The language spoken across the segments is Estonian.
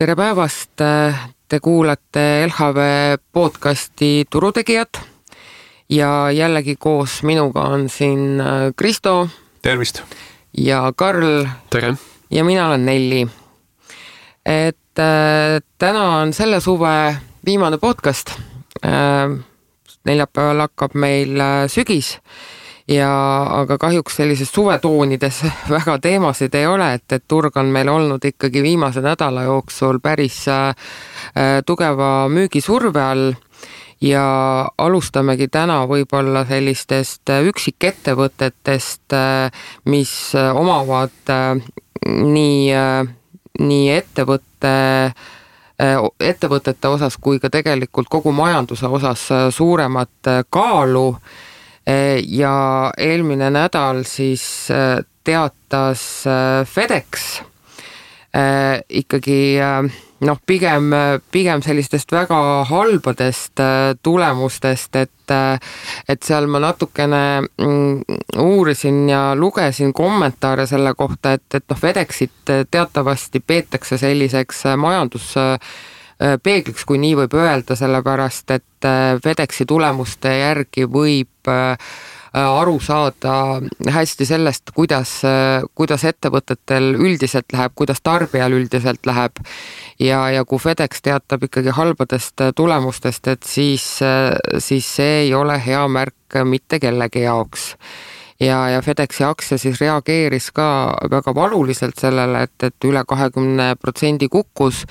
Tere päevast, te kuulate LHV podcasti Turutegijad ja jällegi koos minuga on siin Kristo. Tervist! Ja Karl. Tere! Ja mina olen Nelli. Täna on selle suve viimane podcast. Neljapäeval hakkab meil sügis. Aga kahjuks sellises suvetoonides väga teemasid ei ole, et turg on meil olnud ikkagi viimase nädala jooksul päris tugeva müügisurve all ja alustamegi täna võib-olla sellistest üksikettevõtetest, mis omavad nii ettevõtete osas kui ka tegelikult kogu majanduse osas suuremat kaalu. Ja eelmine nädal siis teatas FedEx ikkagi pigem sellistest väga halbadest tulemustest, et seal ma natukene uurisin ja lugesin kommentaare selle kohta, et FedExit teatavasti peetakse selliseks majanduspeegliks, kui nii võib öelda, sellepärast, et FedExi tulemuste järgi võib aru saada hästi sellest, kuidas ettevõtetel üldiselt läheb, kuidas tarbijal üldiselt läheb ja kui FedEx teatab ikkagi halbadest tulemustest, et siis see ei ole hea märk mitte kellegi jaoks. Ja FedExi aktsia siis reageeris ka väga valuliselt sellele, et üle 20% kukkus,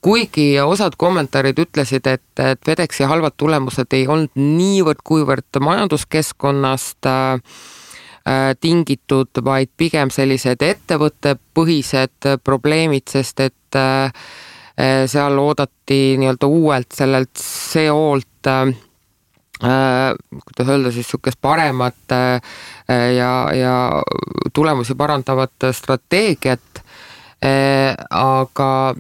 kuigi osad kommentaarid ütlesid, et FedExi halvad tulemused ei olnud niivõrd kuivõrd majanduskeskkonnast tingitud, vaid pigem sellised ettevõttepõhised probleemid, sest et seal oodati nii-öelda uuelt sellelt CO-lt kuidas öelda siis sukest paremat ja tulemusi parandavat strateegiat, aga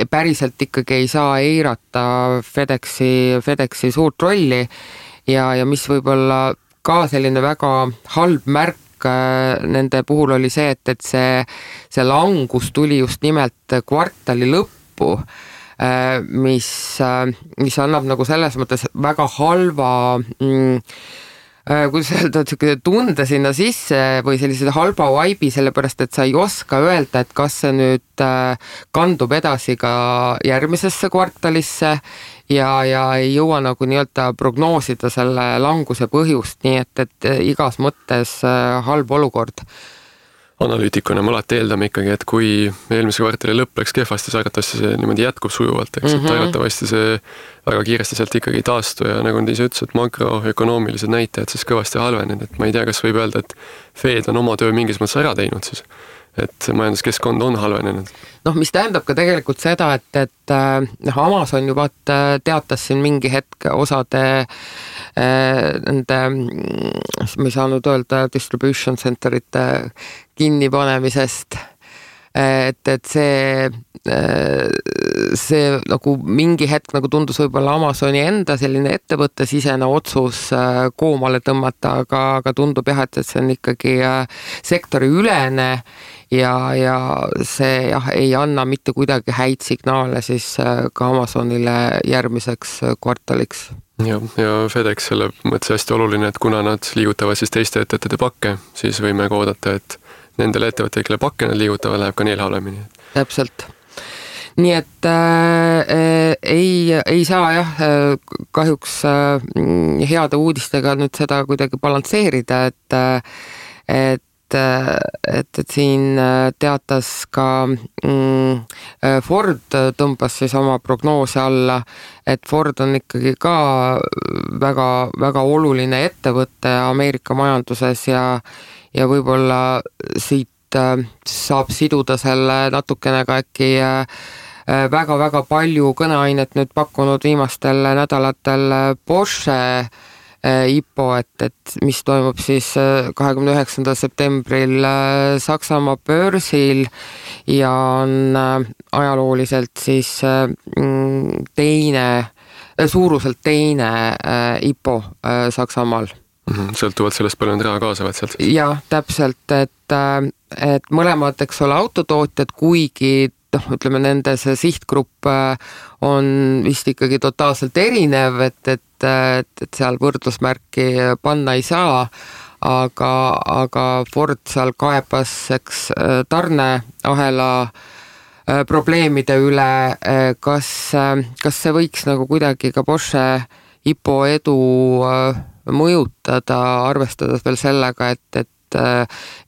päriselt ikkagi ei saa eirata FedExi suurt rolli ja mis võib-olla ka selline väga halb märk nende puhul oli see, et see langus tuli just nimelt kvartali lõppu, mis annab nagu selles mõttes väga halva kuidas öelda, tunde sinna sisse või sellise halba vibe'i, sellepärast, et sa ei oska öelda, et kas see nüüd kandub edasi ka järgmisesse kvartalisse ja ei jõua nagu nii-öelda prognoosida selle languse põhjust, nii et igas mõttes halb olukord. Analüütikuna me alati eeldame ikkagi, et kui eelmise kvartali lõpp läks kehvasti, siis arvatavasti see niimoodi jätkub sujuvalt, eks, et arvatavasti see väga kiiresti sealt ikkagi taastu ja nagu te ise ütles, et makroökonoomilised näitajad siis kõvasti halvenenud, et ma ei tea, kas võib öelda, et Fed on oma töö mingis mõttes ära teinud siis, et majanduskeskkond on halvenenud. Mis tähendab ka tegelikult seda, et Amazon juba teatas siin mingi hetk osade nende, ma ei saanud öelda, distribution centerite kinnipanemisest, et see nagu mingi hetk nagu tundus võib-olla Amazoni enda selline ettevõttesisene otsus koomale tõmmata, aga tundub jah, et see on ikkagi sektori ülene ja see ei anna mitte kuidagi häid signaale siis ka Amazonile järgmiseks kvartaliks. Ja FedEx selle mõttes hästi oluline, et kuna nad liigutavad siis teiste ettevõtete pakke, siis võime ka oodata, et nendele ettevõtted, kelle pakke nad liigutavad, läheb ka neil halvemini. Täpselt. Nii et ei saa jah kahjuks heade uudistega nüüd seda kuidagi balansseerida, et siin teatas ka Ford tõmbas siis oma prognoose alla, et Ford on ikkagi ka väga, väga oluline ettevõte Ameerika majanduses ja võib-olla siit saab siduda selle natukene ka äkki väga-väga palju kõneainet nüüd pakkunud viimastel nädalatel Porsche IPO, et mis toimub siis 29. septembril Saksamaa börsil ja on ajalooliselt siis suuruselt teine IPO Saksamaal. Sõltuvalt sellest palju nad raha kaasavad sealt. Ja täpselt, et mõlemad, eks ole, autotootjad, kuigi ütleme, nende see sihtgrupp on vist ikkagi totaalselt erinev, et seal võrdlusmärki panna ei saa, aga Ford seal kaebas tarneahela probleemide üle, kas see võiks nagu kuidagi ka Porsche IPO edu mõjutada, arvestades veel sellega, et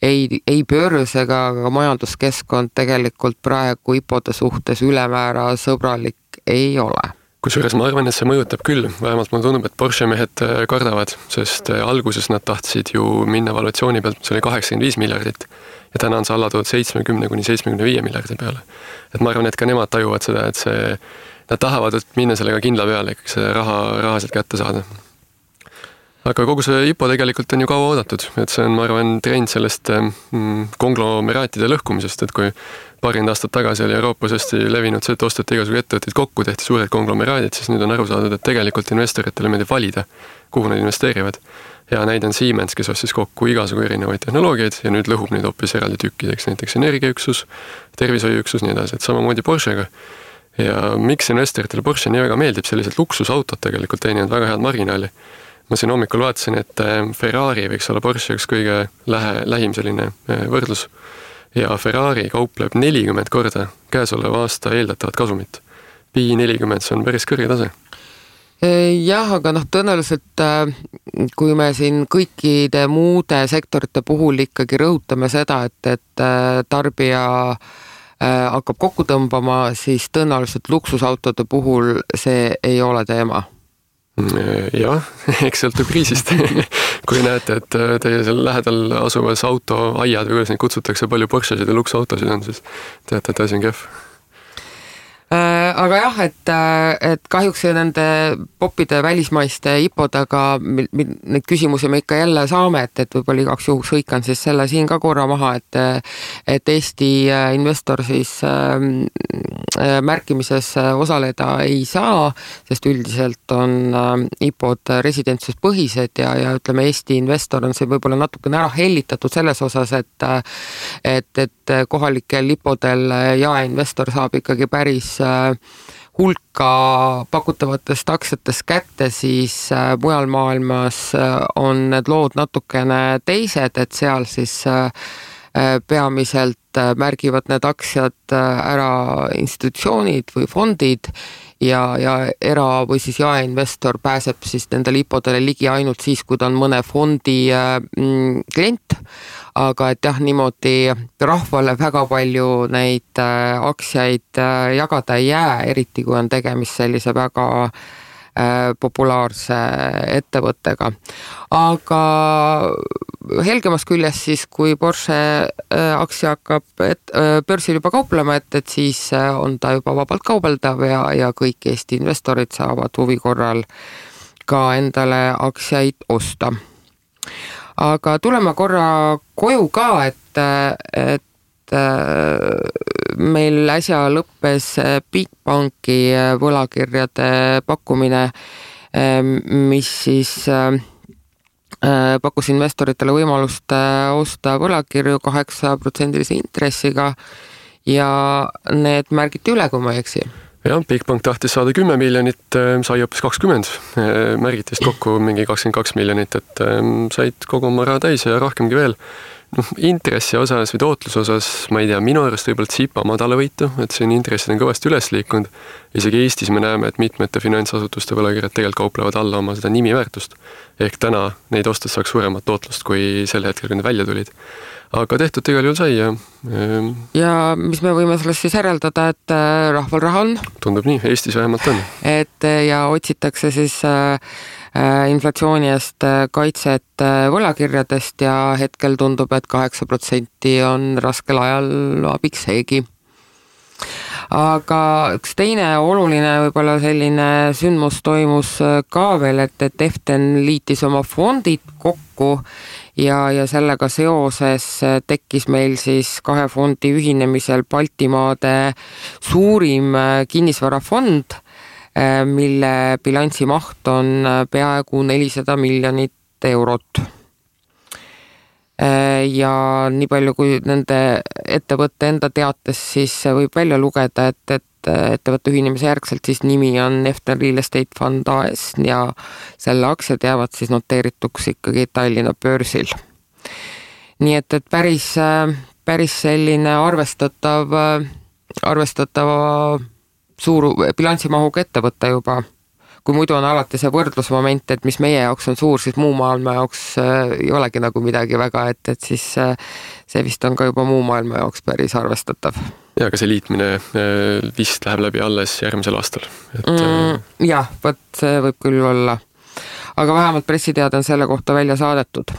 ei börs ega ka majanduskeskkond tegelikult praegu IPO-de suhtes ülemäära sõbralik ei ole. Kusjuures ma arvan, et see mõjutab küll, vähemalt mulle tundub, et Porsche mehed kardavad, sest alguses nad tahtsid ju minna valuatsiooni pealt, mis oli 85 miljardit ja täna on see alla toodud 70–75 miljardi peale. Et ma arvan, et ka nemad tajuvad seda, et nad tahavad minna sellega kindla peale, ikkagi see raha sealt kätte saada. Aga kogu see IPO tegelikult on ju kaua oodatud, et see on, ma arvan, trend sellest konglomeraatide lõhkumisest, et kui paarind aastat tagasi oli Euroopas hästi levinud see, et ostati igasugu ettevõtteid kokku, tehti suured konglomeraadid, siis nüüd on aru saadud, et tegelikult investoritele meeldib valida, kuhu nad investeerivad. Ja näide on Siemens, kes ostis kokku igasugu erinevaid tehnoloogiaid ja nüüd lõhub neid hoopis eraldi tükkideks, näiteks energiaüksus, tervishoiuüksus, nii edasi, et samamoodi Porschega. Ja miks investoritele Porsche nii väga meeldib, sellised luksusautot tegelikult teenivad väga head marginaali. Ma siin hommikul vaatasin, et Ferrari võiks olla Porsche üks kõige lähim selline võrdlus ja Ferrari kaupleb 40 korda käesoleva aasta eeldatavat kasumit. Pi 40, see on päris kõrge tase. Jah, aga tõenäoliselt kui me siin kõikide muude sektorite puhul ikkagi rõhutame seda, et tarbija hakkab kokku tõmbama, siis tõenäoliselt luksusautode puhul see ei ole teema. Jah, eks sõltub kriisist. Kui näete, et teie seal lähedal asuvas autoaiad või kuidas neid kutsutakse, palju Porschesid ja luksautosid on, siis teate, et asi on kehv. Aga jah, et kahjuks nende popide välismaiste IPO-dega neid küsimusi me ikka jälle saame, et võib-olla igaks juhuks hõikan siis selle siin ka korra maha, et Eesti investor siis märkimises osaleda ei saa, sest üldiselt on IPO-d residentsuspõhised ja ütleme, Eesti investor on see võib-olla natukene ära hellitatud selles osas, et kohalikel IPO-del jaeinvestor saab ikkagi päris hulka pakutavatest aktsiatest kätte, siis mujal maailmas on need lood natukene teised, et seal siis peamiselt märgivad need aktsiad ära institutsioonid või fondid ja era- või siis jaeinvestor pääseb siis nendele IPO-dele ligi ainult siis, kui ta on mõne fondi klient, aga et jah, niimoodi rahvale väga palju neid aktsiaid jagada ei jää, eriti kui on tegemist sellise väga populaarse ettevõttega. Aga helgemas küljes siis, kui Porsche aktsia hakkab börsil juba kauplema, et siis on ta juba vabalt kaubeldav ja kõik Eesti investorid saavad huvi korral ka endale aktsiaid osta. Aga tuleme korra koju ka, et meil äsja lõppes Bigbanki võlakirjade pakkumine, mis siis pakkus investoritele võimalust osta võlakirju 8% intressiga ja need märgiti üle, kui ma ei eksi. Jah, Bigbank tahtis saada 10 miljonit, sai hoopis 20, märgitist kokku mingi 22 miljonit, et said kogu oma raha täis ja rohkemgi veel. Intressi osas või tootluse osas, ma ei tea, minu arust võib-olla tsipa madala võitu, et siin intressid on kõvasti üles liikunud. Isegi Eestis me näeme, et mitmete finantsasutuste võlakirjad tegelikult kauplevad alla oma seda nimiväärtust. Ehk täna neid ostes saaks suuremat tootlust kui sel hetkel, kui need välja tulid. Aga tehtud igal juhul sai ja mis me võime sellest siis järeldada, et rahval raha on? Tundub nii, Eestis vähemalt on. Et ja otsitakse siis inflatsiooni eest kaitset võlakirjadest ja hetkel tundub, et 8% on raskel ajal abiks seegi. Aga üks teine oluline võib-olla selline sündmus toimus ka veel, et Eften liitis oma fondid kokku ja sellega seoses tekkis meil siis kahe fondi ühinemisel Baltimaade suurim kinnisvarafond, mille bilansi maht on peaaegu 400 miljonit eurot. ja nii palju kui nende ettevõtte enda teates siis võib välja lugeda, et ettevõtte ühinemise järgselt siis nimi on Efton Real Estate Fund AS ja selle aktsiad jäävad siis noteerituks ikkagi Tallinna börsil. Nii et päris selline arvestatava suuru bilansimahuga ettevõtte juba. Kui muidu on alati see võrdlusmoment, et mis meie jaoks on suur, siis muu maailma jaoks ei olegi nagu midagi väga, et siis see vist on ka juba muu maailma jaoks päris arvestatav. Ja aga see liitmine vist läheb läbi alles järgmisel aastal. Jah, võt see võib küll olla. Aga vähemalt pressiteade on selle kohta välja saadetud.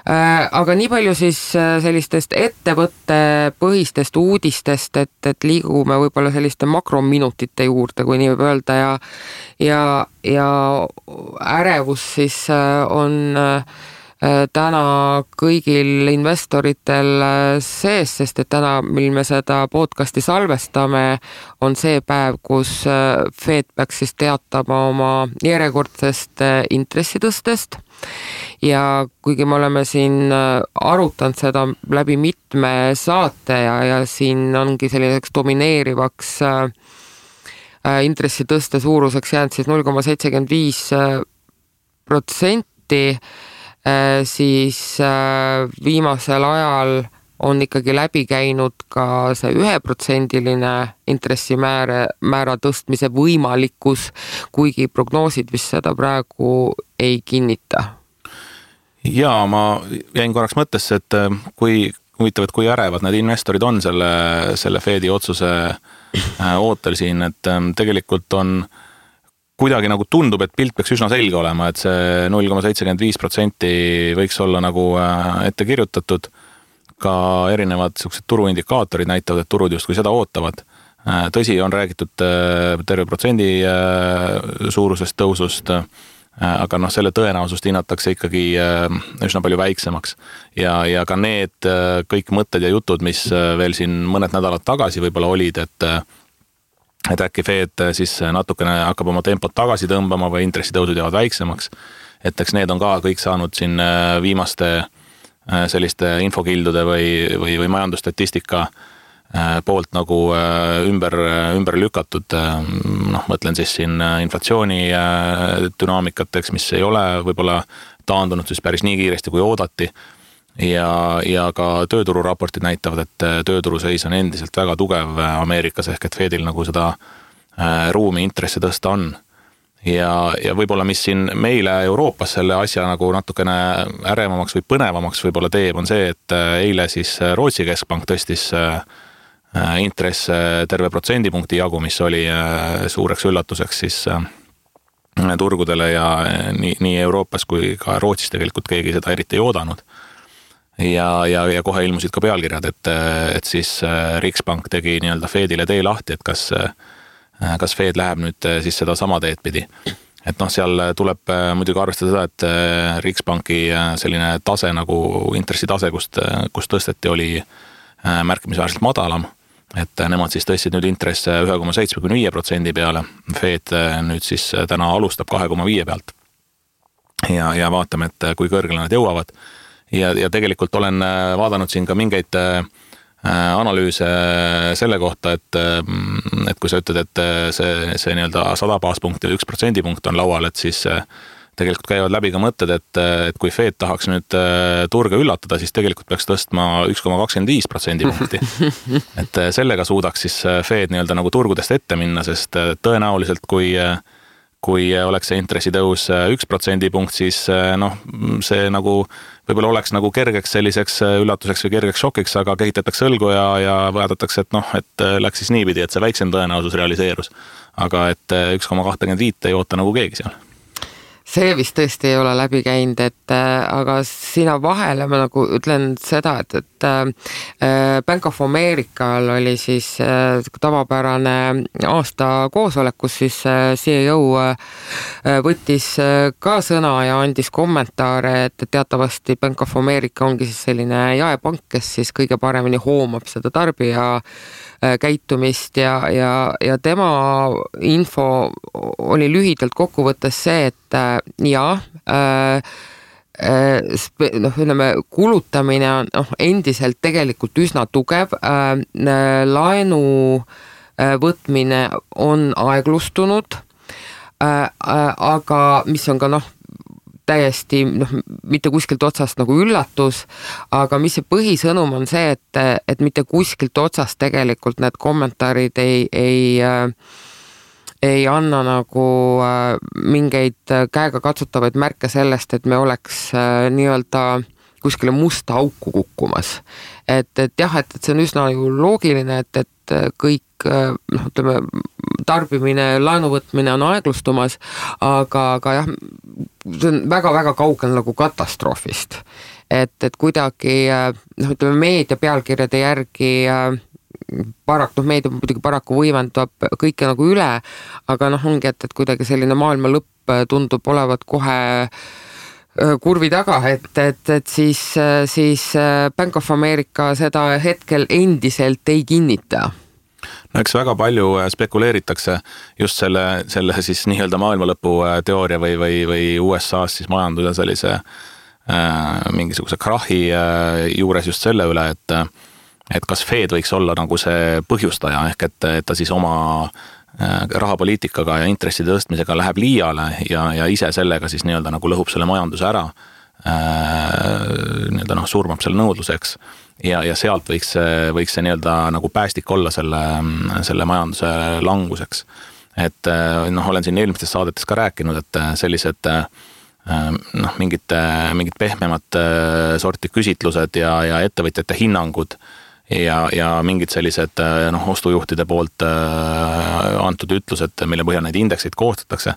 Aga nii palju siis sellistest ettevõtte põhistest uudistest, et liigume võib-olla selliste makrominutite juurde, kui nii võib öelda ja ärevus siis on täna kõigil investoritel sees, sest et täna, mil me seda podcasti salvestame, on see päev, kus Fed peaks siis teatama oma järjekordsest intressitõstest. Ja kuigi me oleme siin arutanud seda läbi mitme saate ja siin ongi selliseks domineerivaks intressitõste suuruseks jäänud siis 0,75%, siis viimasel ajal on ikkagi läbi käinud ka see 1%-line intressimäära tõstmise võimalikkus, kuigi prognoosid vist seda praegu ei kinnita. Jaa, ma jäin korraks mõttesse, et kui ärevad need investorid on selle Fedi otsuse ootel siin, et tegelikult on kuidagi nagu tundub, et pilt peaks üsna selge olema, et see 0,75% võiks olla nagu ette kirjutatud. Ka erinevad turuindikaatorid näitavad, et turud justkui seda ootavad. Tõsi, on räägitud terve protsendi suurusest tõusust, aga selle tõenäosust hinnatakse ikkagi üsna palju väiksemaks. Ja ka need kõik mõtted ja jutud, mis veel siin mõned nädalad tagasi võib-olla olid, et äkki Fed siis natukene hakkab oma tempot tagasi tõmbama või intressitõusud jäävad väiksemaks. Et eks need on ka kõik saanud siin viimaste selliste infokildude või majandusstatistika poolt nagu ümber lükatud. Mõtlen siis siin inflatsiooni dünaamikateks, mis ei ole võib-olla taandunud siis päris nii kiiresti kui oodati. Ja ka töötururaportid näitavad, et tööturu seis on endiselt väga tugev Ameerikas ehk et Fedil nagu seda ruumi intressi tõsta on. Ja võib-olla mis siin meile Euroopas selle asja nagu natukene ärevamaks või põnevamaks võib-olla teeb, on see, et eile siis Rootsi keskpank tõstis intress terve protsendipunkti jagu, mis oli suureks üllatuseks siis turgudele ja nii Euroopas kui ka Rootsis tegelikult keegi seda eriti ei oodanud. Ja kohe ilmusid ka pealkirjad, et siis Riksbank tegi nii-öelda Fedile tee lahti, et kas Fed läheb nüüd siis seda sama teed pidi. Et seal tuleb muidugi arvestada seda, et Riksbanki selline tase nagu intressitase, kus tõsteti, oli märkimisväärselt madalam. Et nemad siis tõstsid nüüd intresse 1,75% peale. Fed nüüd siis täna alustab 2,5 pealt. Ja vaatame, et kui kõrgele nad jõuavad. Ja tegelikult olen vaadanud siin ka mingeid analüüse selle kohta, et kui sa ütled, et see nii-öelda 100 baaspunkti või 1% punkt on laual, et siis tegelikult käivad läbi ka mõtted, et kui Fed tahaks nüüd turge üllatada, siis tegelikult peaks tõstma 1,25% punkti. Et sellega suudaks siis Fed nii-öelda nagu turgudest ette minna, sest tõenäoliselt kui oleks see intressitõus 1% punkt, siis see nagu võib-olla oleks nagu kergeks selliseks üllatuseks või kergeks šokiks, aga kehitatakse õlgu ja vaadatakse, et läks siis niipidi, et see väiksem tõenäosus realiseerus. Aga et 1,25 ei oota nagu keegi seal. See vist tõesti ei ole läbi käinud, aga sina vahele ma nagu ütlen seda, et Bank of Americal oli siis tavapärane aasta koosolek, kus siis CEO võttis ka sõna ja andis kommentaare, et teatavasti Bank of America ongi siis selline jaepank, kes siis kõige paremini hoomab seda tarbija käitumist ja tema info oli lühidalt kokkuvõttes see, et kulutamine on endiselt tegelikult üsna tugev, laenu võtmine on aeglustunud, aga mis on ka täiesti mitte kuskilt otsast nagu üllatus, aga mis see põhisõnum on see, et mitte kuskilt otsast tegelikult need kommentaarid ei anna nagu mingeid käega katsutavaid märke sellest, et me oleks nii-öelda kuskile musta auku kukkumas. Et see on üsna ju loogiline, et kõik tarbimine, laenuvõtmine on aeglustumas, aga jah, see on väga-väga kaugel nagu katastroofist. Et kuidagi, meedia pealkirjade järgi meedia muidugi paraku võimendab kõike nagu üle, aga ongi, et kuidagi selline maailma lõpp tundub olevat kohe kurvi taga, et siis Bank of America seda hetkel endiselt ei kinnita. No eks väga palju spekuleeritakse just selle siis nii-öelda maailmalõpu teooria või USA-s siis majanduse sellise mingisuguse krahi juures just selle üle, et kas Fed võiks olla nagu see põhjustaja, ehk et ta siis oma rahapoliitikaga ja intresside tõstmisega läheb liiale ja ise sellega siis nii-öelda nagu lõhub selle majanduse ära, nii-öelda surmab selle nõudluseks ja sealt võiks see nii-öelda nagu päästik olla selle majanduse languseks. Et olen siin eelmistes saadetes ka rääkinud, et sellised mingid pehmemat sorti küsitlused ja ettevõtjate hinnangud ja mingid sellised ostujuhtide poolt antud ütlused, mille põhjal neid indekseid koostatakse,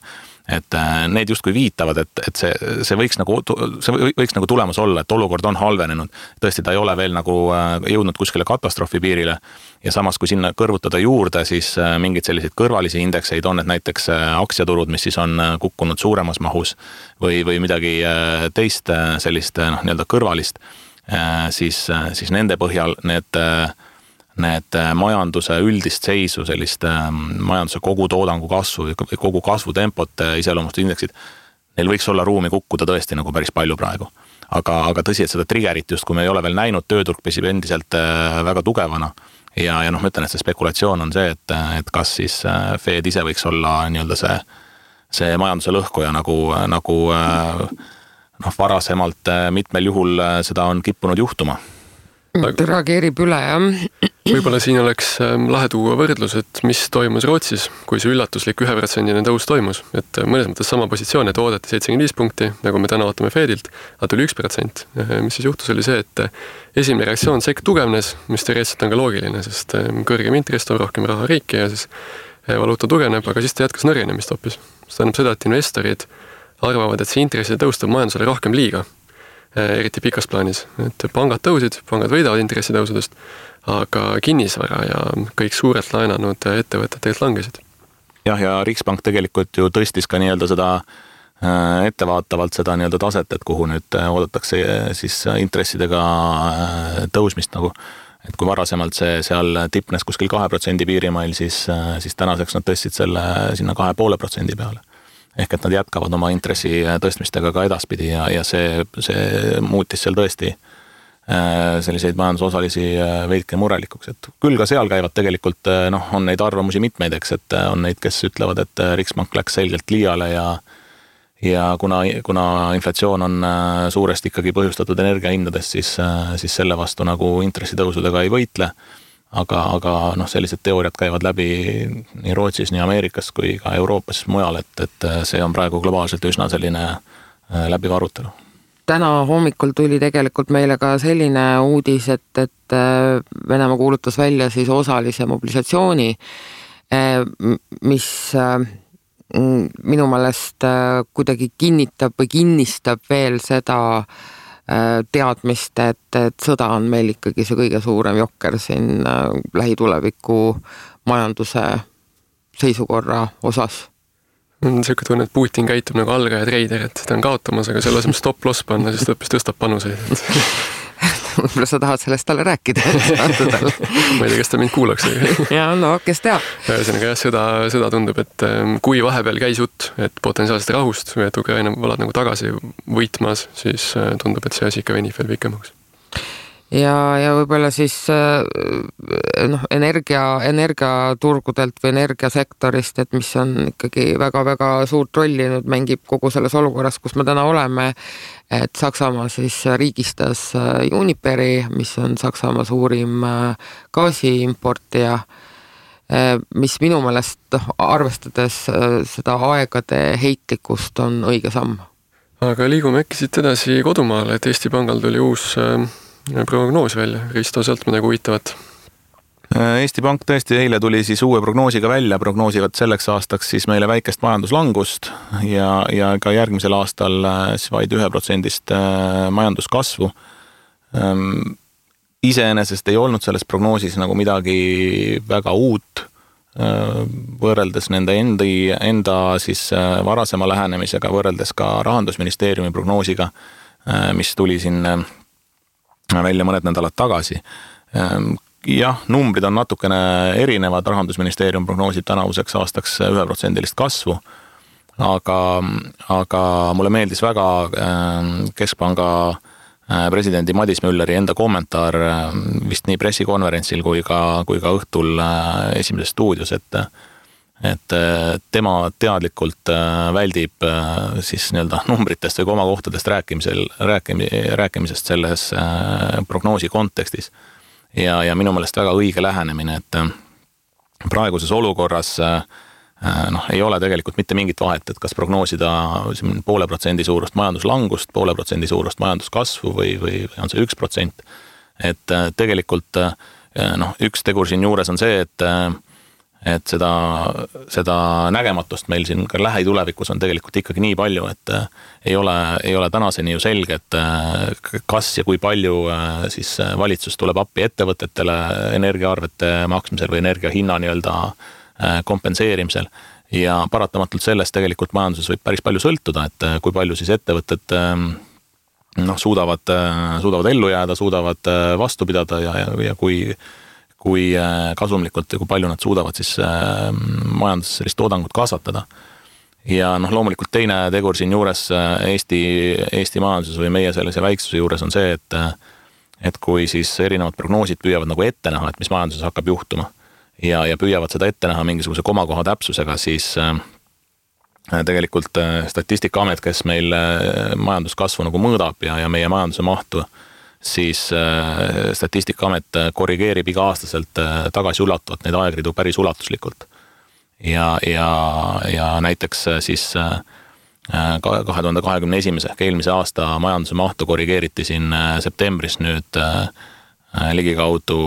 et need justkui viitavad, et see võiks nagu tulemus olla, et olukord on halvenenud. Tõesti, ta ei ole veel nagu jõudnud kuskile katastroofi piirile ja samas, kui sinna kõrvutada juurde, siis mingid selliseid kõrvalisi indekseid on, et näiteks aktsiaturud, mis siis on kukkunud suuremas mahus või midagi teist sellist nii-öelda kõrvalist, siis nende põhjal need majanduse üldist seisu, sellist majanduse kogutoodangu kasvu või kogu kasvutempot iseloomust indeksid, neil võiks olla ruumi kukkuda tõesti nagu päris palju praegu. Aga tõsi, et seda triggerit just, kui me ei ole veel näinud, tööturg püsib endiselt väga tugevana ja ma ütlen, et see spekulatsioon on see, et kas siis Fed ise võiks olla nii-öelda see majanduse lõhkuja nagu varasemalt mitmel juhul seda on kippunud juhtuma. Ta reageerib üle, jah. Võib-olla siin oleks lahe tuua võrdlus, et mis toimus Rootsis, kui see üllatuslik 1% tõus toimus. Et mõnes mõttes sama positsioon, et oodati 75 punkti, nagu me täna ootame Fedilt, aga tuli 1%. Mis siis juhtus oli see, et esimene reaktsioon sekk tugevnes, mis teoreetselt on ka loogiline, sest kõrgem intress toob rohkem raha riiki ja siis valuuta tugevneb, aga siis ta jätkas nõrgenemist hoopis. See tähendab seda, et investorid arvavad, et see intresside tõus toob majandusele rohkem liiga, eriti pikas plaanis. Et pangad tõusid, pangad võidavad intressitõusudest, aga kinnisvara ja kõik suurelt laenanud ettevõtted tegelikult langesid. Jah, ja Riksbank tegelikult ju tõstis ka nii-öelda seda ettevaatavalt seda nii-öelda taset, et kuhu nüüd oodatakse siis intressidega tõusmist nagu. Et kui varasemalt see seal tipnes kuskil 2% piirimail, siis tänaseks nad tõstsid selle sinna 2,5% peale. Ehk et nad jätkavad oma intressi tõstmistega ka edaspidi ja see muutis seal tõesti selliseid majandusosalisi veidke murelikuks. Et küll ka seal käivad tegelikult, on neid arvamusi mitmeid, eks, et on neid, kes ütlevad, et Riksbank läks selgelt liiale ja kuna inflatsioon on suuresti ikkagi põhjustatud energiahindadest, siis selle vastu nagu intressitõusudega ei võitle. Aga sellised teooriad käivad läbi nii Rootsis, nii Ameerikas kui ka Euroopas mujal, et see on praegu globaalselt üsna selline läbiv arutelu. Täna hommikul tuli tegelikult meile ka selline uudis, et Venemaa kuulutas välja siis osalise mobilisatsiooni, mis minu meelest kuidagi kinnitab või kinnistab veel seda teadmist, et sõda on meil ikkagi see kõige suurem jokker siin lähituleviku majanduse seisukorra osas. Selline tunne, et Putin käitub nagu algaja treider, et ta on kaotamas, aga selle asemel stop-loss panna, siis ta õppis tõstab panuseid. võib-olla sa tahad sellest talle rääkida. Ma ei tea, kes ta mind kuulaks. Ja no, kes teab. Ühesõnaga seda tundub, et kui vahepeal käis jutt, et potentsiaalselt rahust või et Ukraina valad nagu tagasi võitmas, siis tundub, et see asi ikka venib veel pikemaks. Ja võib-olla siis energiaturgudelt või energiasektorist, et mis on ikkagi väga-väga suurt rolli nüüd mängib kogu selles olukorras, kus me täna oleme, et Saksamaa siis riigistas Uniperi, mis on Saksamaa suurim gaasiimportija, mis minu meelest arvestades seda aegade heitlikkust on õige samm. Aga liigume äkki siit edasi kodumaale, et Eesti Pangal tuli uus prognoos välja. Risto, sealt midagi huvitavat? Eesti Pank tõesti eile tuli siis uue prognoosiga välja, prognoosivad selleks aastaks siis meile väikest majanduslangust ja ka järgmisel aastal siis vaid 1% majanduskasvu. Iseenesest ei olnud selles prognoosis nagu midagi väga uut, võrreldes nende enda siis varasema lähenemisega, võrreldes ka Rahandusministeeriumi prognoosiga, mis tuli siin välja mõned nädalad tagasi. Jah, numbrid on natukene erinevad, Rahandusministeerium prognoosib tänavuseks aastaks 1% kasvu, aga mulle meeldis väga Keskpanga presidendi Madis Mülleri enda kommentaar vist nii pressikonverentsil kui ka õhtul Esimeses stuudios, et tema teadlikult väldib siis nii-öelda numbritest või komakohtadest rääkimisest selles prognoosi kontekstis. Ja minu meelest väga õige lähenemine, et praeguses olukorras ei ole tegelikult mitte mingit vahet, et kas prognoosida 0,5% suurust majanduslangust, 0,5% suurust majanduskasvu või on see 1%. Et tegelikult üks tegur siin juures on see, et seda nägematust meil siin ka lähitulevikus on tegelikult ikkagi nii palju, et ei ole tänaseni ju selge, et kas ja kui palju siis valitsus tuleb appi ettevõtetele energiaarvete maksmisel või energiahinna nii-öelda kompenseerimisel. Ja paratamatult sellest tegelikult majanduses võib päris palju sõltuda, et kui palju siis ettevõtted suudavad ellu jääda, suudavad vastu pidada ja kui kasumlikult ja kui palju nad suudavad siis majanduses sellist toodangut kasvatada. Ja loomulikult teine tegur siin juures Eesti majanduses või meie sellise väiksuse juures on see, et kui siis erinevad prognoosid püüavad nagu ette näha, et mis majanduses hakkab juhtuma ja püüavad seda ette näha mingisuguse komakoha täpsusega, siis tegelikult Statistikaamet, kes meil majanduskasvu nagu mõõdab ja meie majanduse mahtu, siis Statistikaamet korrigeerib iga-aastaselt tagasiulatuvalt neid aegridu päris ulatuslikult. Ja näiteks siis 2021. ehk eelmise aasta majanduse mahtu korrigeeriti siin septembris nüüd ligikaudu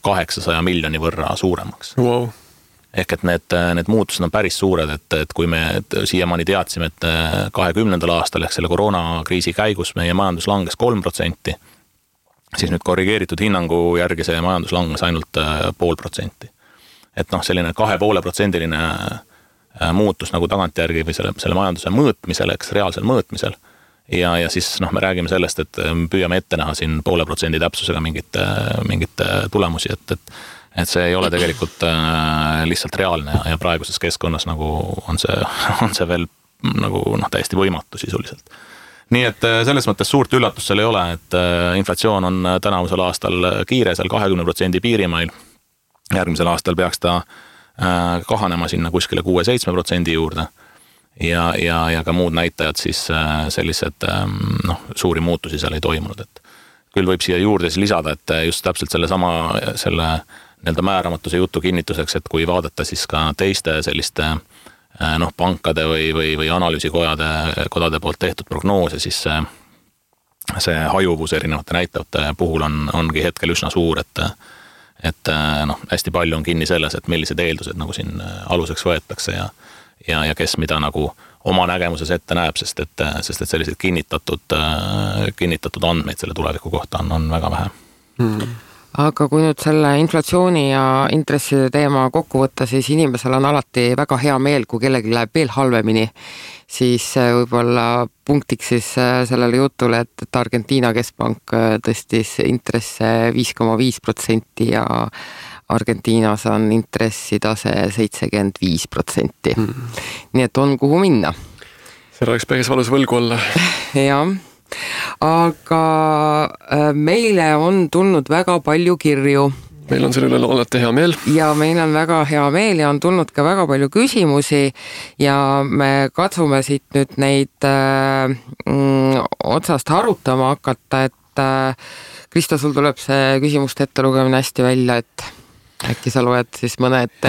800 miljoni võrra suuremaks. Wow. Ehk et need muutused on päris suured, et kui me siiamaani teadsime, et 2020. aastal ehk selle koroonakriisi käigus meie majandus langes 3%, siis nüüd korrigeeritud hinnangu järgi see majandus langes ainult 0,5%. Et selline 2,5%-line muutus nagu tagantjärgi või selle majanduse mõõtmisel, eks reaalsel mõõtmisel. Ja siis me räägime sellest, et püüame ette näha siin 0,5% täpsusega mingit tulemusi, et see ei ole tegelikult lihtsalt reaalne ja praeguses keskkonnas nagu on see veel nagu täiesti võimatu sisuliselt. Nii et selles mõttes suurt üllatust seal ei ole, et inflatsioon on tänavusel aastal kiire seal 20% piirimail. Järgmisel aastal peaks ta kahanema sinna kuskile 6-7% juurde ja ka muud näitajad siis sellised suuri muutusi seal ei toimunud. Et küll võib siia juurde siis lisada, et just täpselt selle nii-öelda määramatuse jutu kinnituseks, et kui vaadata siis ka teiste selliste pankade või analüüsikodade poolt tehtud prognoose, siis see hajuvus erinevate näitajate puhul ongi hetkel üsna suur, et hästi palju on kinni selles, et millised eeldused nagu siin aluseks võetakse ja kes mida nagu oma nägemuses ette näeb, sest et sellised kinnitatud andmeid selle tuleviku kohta on väga vähe. aga kui nüüd selle inflatsiooni ja intresside teema kokku võtta, siis inimesel on alati väga hea meel, kui kellelgi läheb veel halvemini, siis võib-olla punktiks siis sellele jutule, et Argentiina keskpank tõstis intresse 5,5% ja Argentiinas on intressitase 75%. Nii et on kuhu minna. Seal oleks päris valus võlgu olla. Jah. Aga meile on tulnud väga palju kirju. Meil on selle üle alati hea meel. Ja meil on väga hea meel ja on tulnud ka väga palju küsimusi ja me katsume siit nüüd neid otsast arutama hakata, et Kristo, sul tuleb see küsimuste ettelugemine hästi välja, et äkki sa loed siis mõne ette?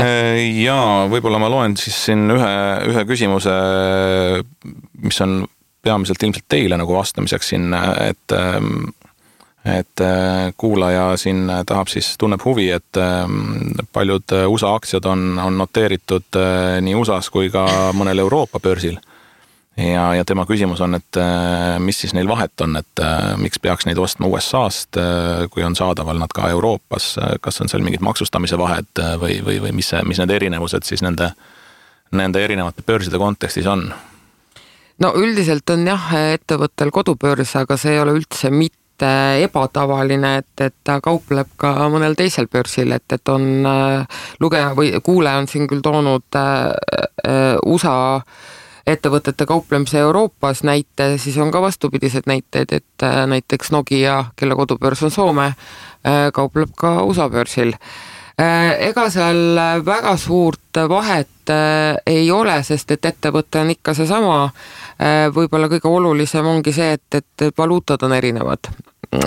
Jaa, võib-olla ma loen siis siin ühe küsimuse, mis on peamiselt ilmselt teile nagu vastamiseks siin, et kuulaja siin tahab siis, tunneb huvi, et paljud USA aktsiad on noteeritud nii USAs kui ka mõnel Euroopa börsil. Ja tema küsimus on, et mis siis neil vahet on, et miks peaks neid ostma USA-st, kui on saadaval nad ka Euroopas, kas on seal mingid maksustamise vahed või mis need erinevused siis nende erinevate börside kontekstis on? No üldiselt on jah ettevõttel kodubörs, aga see ei ole üldse mitte ebatavaline, et ta kaupleb ka mõnel teisel börsil, et on lugeja või kuulaja on siin küll toonud USA ettevõtete kauplemise Euroopas näite, siis on ka vastupidised näited, et näiteks Nokia, kelle kodubörs on Soome, kaupleb ka USA börsil. Ega seal väga suurt vahet ei ole, sest et ettevõte on ikka see sama. Võib-olla kõige olulisem ongi see, et valuutad on erinevad.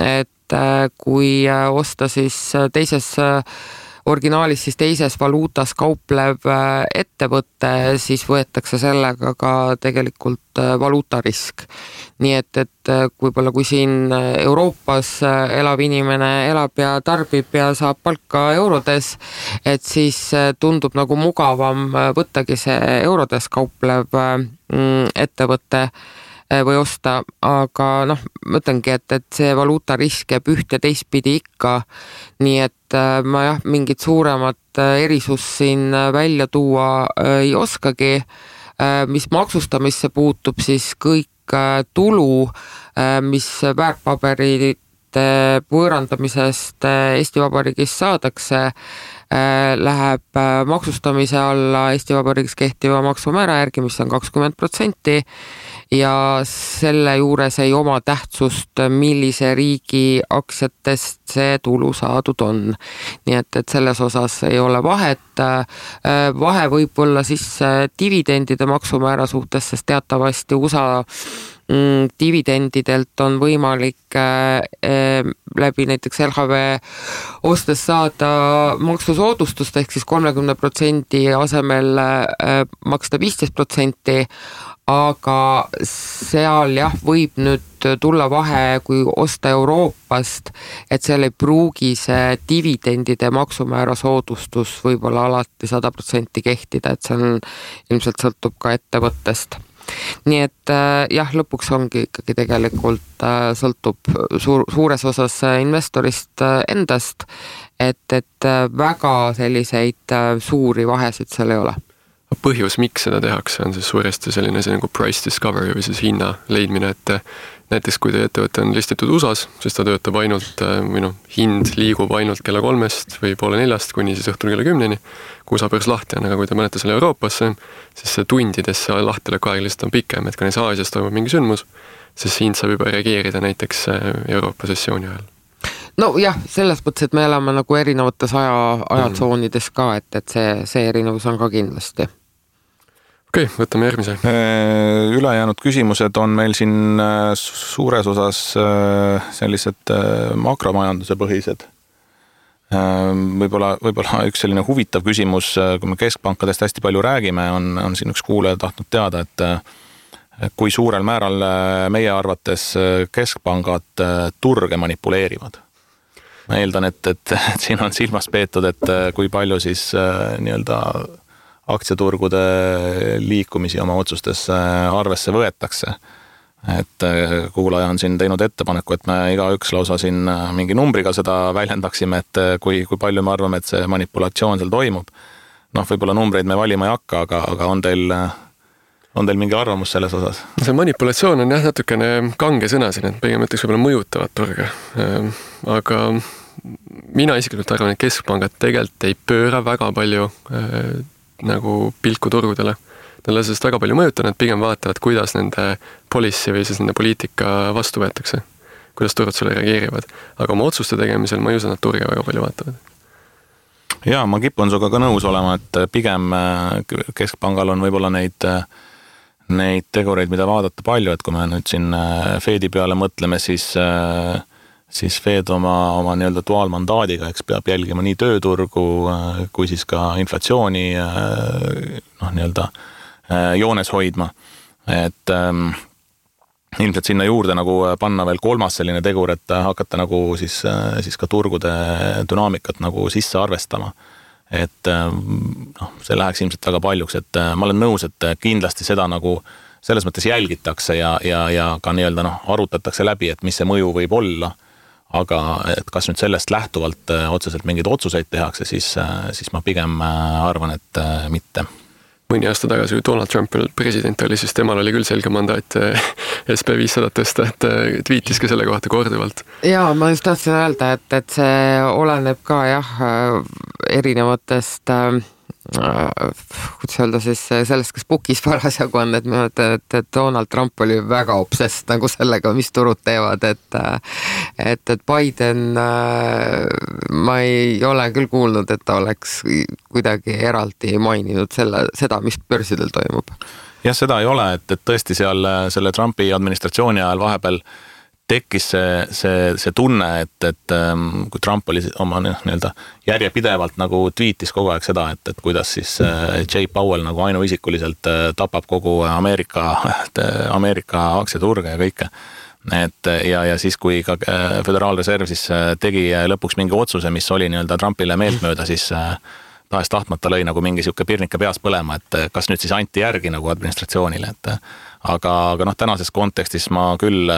Et kui osta siis teises originaalis siis teises valuutas kauplev ettevõte, siis võetakse sellega ka tegelikult valuutarisk. Nii et võib-olla kui siin Euroopas elav inimene elab ja tarbib ja saab palka eurodes, et siis tundub nagu mugavam võttagi see eurodes kauplev ettevõte või osta, aga ma ütlengi, et see valuutarisk jääb üht ja teistpidi ikka, nii et ma mingit suuremat erisust siin välja tuua ei oskagi. Mis maksustamisse puutub, siis kõik tulu, mis väärtpaberite võõrandamisest Eesti Vabariigis saadakse, läheb maksustamise alla Eesti Vabariigis kehtiva maksumäära järgi, mis on 20%, ja selle juures ei oma tähtsust, millise riigi aktsiatest see tulu saadud on. Nii et selles osas ei ole vahet. Vahe võib olla siis dividendide maksumäära suhtes, sest teatavasti USA dividendidelt on võimalik läbi näiteks LHV ostes saada maksusoodustust ehk siis 30% asemel maksta 15%, aga seal võib nüüd tulla vahe, kui osta Euroopast, et seal ei pruugi see dividendide maksumäära soodustus võib-olla alati 100% kehtida, et see on, ilmselt sõltub ka ettevõttest. Nii et lõpuks ongi ikkagi tegelikult sõltub suures osas investorist endast, et väga selliseid suuri vahesid seal ei ole. Põhjus, miks seda tehakse, on siis suuresti selline nagu price discovery või siis hinna leidmine, et näiteks kui teie ettevõte on listitud USAs, siis ta töötab ainult, hind liigub ainult kella 3 või poole 4 kuni siis õhtul kella 10, kui USA börs lahti on, aga kui te panete selle Euroopasse, siis see tundidesse lahtileku aeg lihtsalt on pikem, et kui näiteks Aasias toimub mingi sündmus, siis hind saab juba reageerida näiteks Euroopa sessiooni ajal. No jah, selles mõttes, et me elame nagu erinevates ajatsoonides ka, et see erinevus on ka kindlasti. Okei, võtame järgmise. Ülejäänud küsimused on meil siin suures osas sellised makromajanduse põhised. Võib-olla üks selline huvitav küsimus, kui me keskpankadest hästi palju räägime, on siin üks kuulaja tahtnud teada, et kui suurel määral meie arvates keskpangad turge manipuleerivad. Ma eeldan, et siin on silmas peetud, et kui palju siis nii-öelda aktsiaturgude liikumisi oma otsustes arvesse võetakse. et kuulaja on siin teinud ettepaneku, et me igaüks lausa siin mingi numbriga seda väljendaksime, et kui palju me arvame, et see manipulatsioon seal toimub. Noh, võib-olla numbreid me valima ei hakka, aga on teil mingi arvamus selles osas? See manipulatsioon on jah natukene kange sõna siin, et pigem ütleks võib-olla mõjutavad turge. Aga mina isiklikult arvan, et keskpangad tegelikult ei pööra väga palju nagu pilku turgudele. Nad ei ole sellest väga palju mõjuta, nad pigem vaatavad, kuidas nende policy või siis nende poliitika vastu võetakse, kuidas turud sulle reageerivad. Aga oma otsuste tegemisel ma ei usu, nad turge väga palju vaatavad. Jaa, ma kipun suga ka nõus olema, et pigem keskpangal on võib-olla neid tegureid, mida vaadata palju, et kui me nüüd siin Fedi peale mõtleme, siis Fed oma nii-öelda duaalmandaadiga, eks peab jälgima nii tööturgu kui siis ka inflatsiooni nii-öelda joones hoidma, et ilmselt sinna juurde nagu panna veel kolmas selline tegur, et hakata nagu siis ka turgude dünaamikat nagu sisse arvestama. Et see läheks ilmselt väga paljuks, et ma olen nõus, et kindlasti seda nagu selles mõttes jälgitakse ja ka nii-öelda arutatakse läbi, et mis see mõju võib olla, aga et kas nüüd sellest lähtuvalt otseselt mingeid otsuseid tehakse, siis ma pigem arvan, et mitte. Mõni aasta tagasi, kui Donald Trump president oli, siis temal oli küll selge mandaat SP500 tõsta, et tweetis ka selle kohta korduvalt. Jaa, ma just tahtsin öelda, et see oleneb ka erinevatest kuidas öelda siis sellest, kes bookis parasjagu on, et minu et Donald Trump oli väga obsessed nagu sellega, mis turud teevad, et Biden ma ei ole küll kuulnud, et ta oleks kuidagi eraldi maininud seda, mis börsidel toimub. Jah, seda ei ole, et tõesti seal selle Trumpi administratsiooni ajal vahepeal tekkis see tunne, et kui Trump oli oma nii-öelda järjepidevalt nagu tweetis kogu aeg seda, et kuidas siis Jay Powell nagu ainuisikuliselt tapab kogu Ameerika aktsiaturge ja kõike. Ja siis, kui ka Föderaalreserv siis tegi lõpuks mingi otsuse, mis oli nii-öelda Trumpile meeltmööda, siis tahes tahtmata lõi nagu mingi siuke pirnika peas põlema, et kas nüüd siis anti järgi nagu administratsioonile, aga tänases kontekstis ma küll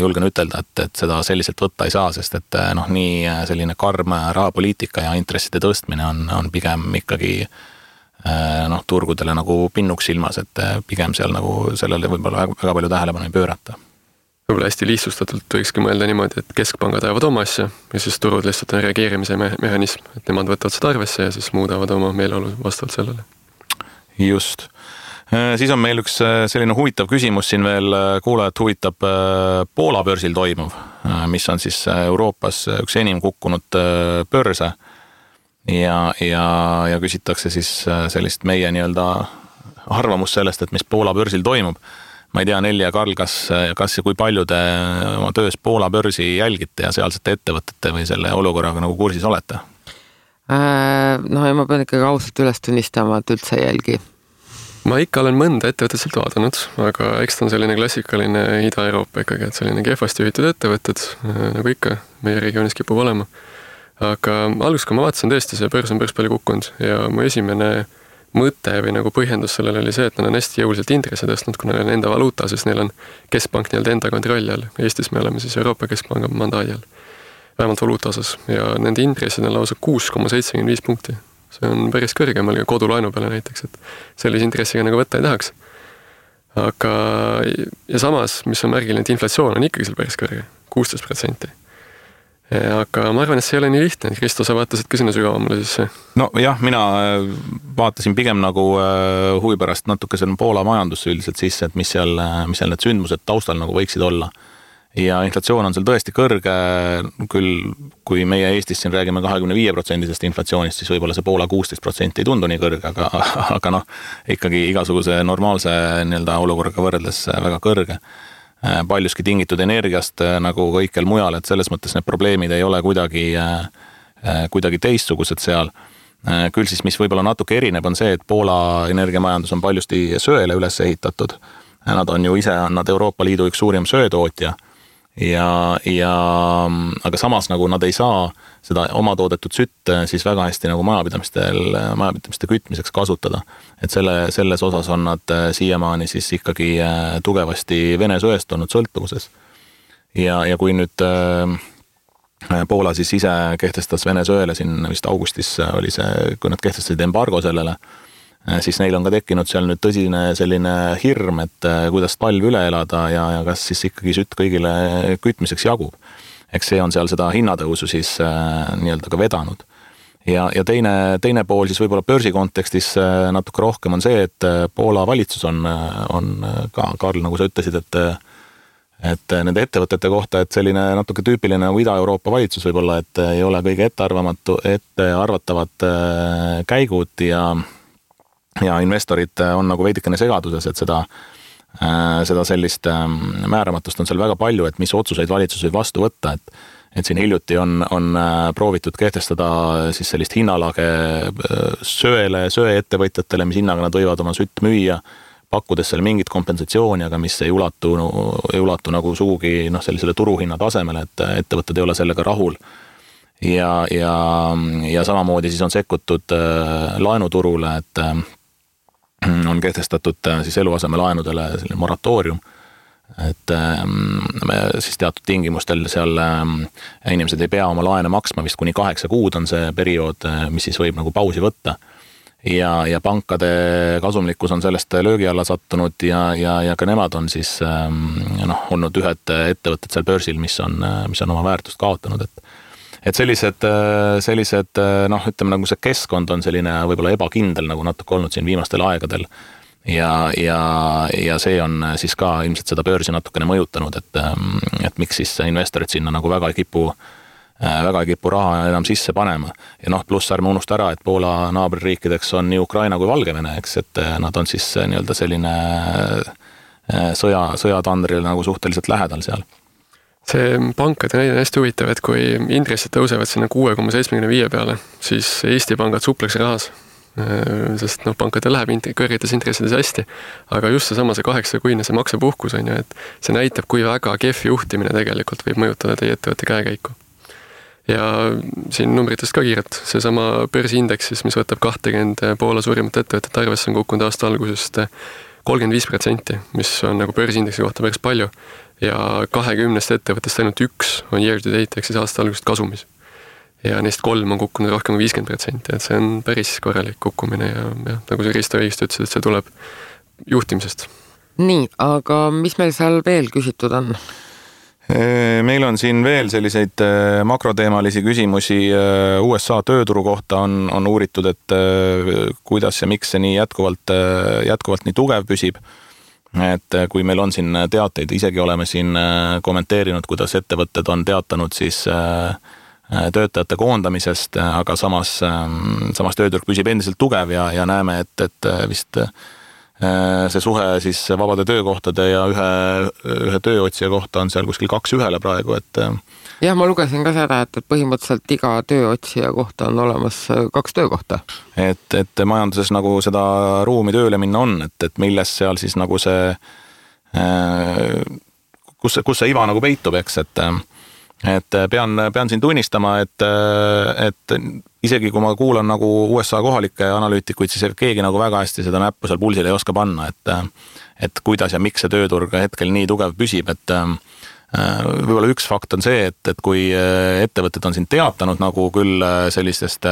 julgen ütelda, et seda selliselt võtta ei saa, sest et nii selline karm rahapoliitika ja intresside tõstmine on pigem ikkagi turgudele nagu pinnuks silmas, et pigem seal nagu sellele võib-olla väga palju tähelepanu ei pöörata. Võib-olla hästi lihtsustatult võikski mõelda niimoodi, et keskpangad ajavad oma asja ja siis turud lihtsalt on reageerimise mehhanism, et nemad võtavad seda arvesse ja siis muudavad oma meeleolu vastavalt sellele. Just. Siis on meil üks selline huvitav küsimus siin veel, kuulajat huvitab Poola börsil toimuv, mis on siis Euroopas üks enim kukkunud börse ja küsitakse siis sellist meie nii-öelda arvamus sellest, et mis Poola börsil toimub. Ma ei tea, Nelli ja Karl, kas ja kui palju te oma töös Poola börsi jälgite ja sealsete ettevõtete või selle olukorraga nagu kursis olete? Ja ma pean ikkagi ausalt üles tunnistama, et üldse ei jälgi. Ma ikka olen mõnda ettevõtet sealt vaadanud, aga eks ta on selline klassikaline Ida-Euroopa ikkagi, et selline kehvasti juhitud ettevõtted, nagu ikka meie regioonis kipub olema. Aga alguses, kui ma vaatasin tõesti, see börs on päris palju kukkunud ja mu esimene mõte või nagu põhjendus sellele oli see, et nad on hästi jõuliselt intressi tõstnud, kuna neil on enda valuuta, sest neil on keskpank nii-öelda enda kontrolli all. Eestis me oleme siis Euroopa Keskpanga mandaadi all, vähemalt valuuta osas ja nende intressid on lausa 6,75 punkti. See on päris kõrgemal kodulaenu peale näiteks, et sellise intressiga nagu võtta ei tahaks. Aga ja samas, mis on märgiline, et inflatsioon on ikkagi seal päris kõrge, 16%. Aga ma arvan, et see ei ole nii lihtne. Kristo, sa vaatasid ka sinna sügavamale sisse? No jah, mina vaatasin pigem nagu huvi pärast natuke selle Poola majandusse üldiselt sisse, et mis seal need sündmused taustal nagu võiksid olla. Ja inflatsioon on seal tõesti kõrge, küll kui meie Eestis siin räägime 25% inflatsioonist, siis võib-olla see Poola 16% ei tundu nii kõrge, aga ikkagi igasuguse normaalse nii-öelda olukorraga võrreldes väga kõrge. Paljuski tingitud energiast nagu kõikjal mujal, et selles mõttes need probleemid ei ole kuidagi teistsugused seal. Küll siis, mis võib-olla natuke erineb, on see, et Poola energiamajandus on paljusti söele üles ehitatud. Nad on ju ise Euroopa Liidu üks suurim söetootja aga samas nagu nad ei saa seda oma toodetud sütt siis väga hästi nagu majapidamiste kütmiseks kasutada. Et selles osas on nad siiamaani siis ikkagi tugevasti Vene söest olnud sõltuvuses. Ja kui nüüd Poola siis ise kehtestas Vene söele siin vist augustis oli see, kui nad kehtestasid embargo sellele, siis neil on ka tekkinud seal nüüd tõsine selline hirm, et kuidas talv üle elada ja kas siis ikkagi sütt kõigile kütmiseks jagub. Eks see on seal seda hinnatõusu siis nii-öelda ka vedanud. Ja teine pool siis võib-olla börsi kontekstis natuke rohkem on see, et Poola valitsus on ka, Karl, nagu sa ütlesid, et nende ettevõtete kohta, et selline natuke tüüpiline nagu Ida-Euroopa valitsus võib-olla, et ei ole kõige ettearvatavad käigud ja investorid on nagu veidikene segaduses, et seda sellist määramatust on seal väga palju, et mis otsuseid valitsus võib vastu võtta, et siin hiljuti on proovitud kehtestada siis sellist hinnalage söeettevõtjatele, mis hinnaga nad võivad oma sütt müüa, pakkudes seal mingit kompensatsiooni, aga mis ei ulatu nagu sugugi sellisele turuhinna tasemele, et ettevõtted ei ole sellega rahul. Ja samamoodi siis on sekkutud laenuturule, et on kehtestatud siis eluasemelaenudele selline moratoorium, et siis teatud tingimustel seal inimesed ei pea oma laene maksma, vist kuni 8 kuud on see periood, mis siis võib nagu pausi võtta. Ja pankade kasumlikkus on sellest löögi alla sattunud ja ka nemad on siis olnud ühed ettevõtted seal börsil, mis on oma väärtust kaotanud, et sellised ütleme nagu see keskkond on selline võib-olla ebakindel nagu natuke olnud siin viimastel aegadel ja see on siis ka ilmselt seda börsi natukene mõjutanud, et miks siis investorid sinna nagu väga ei kipu raha enam sisse panema. Ja pluss ärme unusta ära, et Poola naaberriikideks on nii Ukraina kui Valgevene, eks, et nad on siis nii-öelda selline sõjatandril nagu suhteliselt lähedal seal. See pankade näide on hästi huvitav, et kui intressid tõusevad sinna 6,75 peale, siis Eesti pangad supleks rahas, sest pankadel läheb kõrgetes intressides hästi, aga just see 8-kuine see maksepuhkus on ju, et see näitab, kui väga kehv juhtimine tegelikult võib mõjutada teie ettevõtte käekäiku. Ja siin numbritest ka kiirelt, seesama börsiindeksis, mis võtab 20 Poola suurimat ettevõtet arvesse, on kukkunud aasta algusest 35%, mis on nagu börsiindeksi kohta päris palju. Ja 20 ettevõttest ainult 1 on year to date, ehk siis aasta algusest kasumis. Ja neist 3 on kukkunud rohkem kui 50%, et see on päris korralik kukkumine ja nagu see Risto õigesti ütles, et see tuleb juhtimisest. Nii, aga mis meil seal veel küsitud on? Meil on siin veel selliseid makroteemalisi küsimusi USA tööturu kohta on uuritud, et kuidas ja miks see nii jätkuvalt nii tugev püsib. Et kui meil on siin teateid, isegi oleme siin kommenteerinud, kuidas ettevõtted on teatanud siis töötajate koondamisest, aga samas tööturg püsib endiselt tugev ja näeme, et vist see suhe siis vabade töökohtade ja ühe tööotsija kohta on seal kuskil 2:1 praegu, et jah, ma lugesin ka seda, et põhimõtteliselt iga tööotsija kohta on olemas 2 töökohta. Et majanduses nagu seda ruumi tööle minna on, et milles seal siis nagu see kus see iva nagu peitub, eks, et pean siin tunnistama, et isegi kui ma kuulan nagu USA kohalikke analüütikuid, siis keegi nagu väga hästi seda näppu seal pulsil ei oska panna, et kuidas ja miks see tööturg hetkel nii tugev püsib, et võib-olla üks fakt on see, et kui ettevõtted on siin teatanud nagu küll sellistest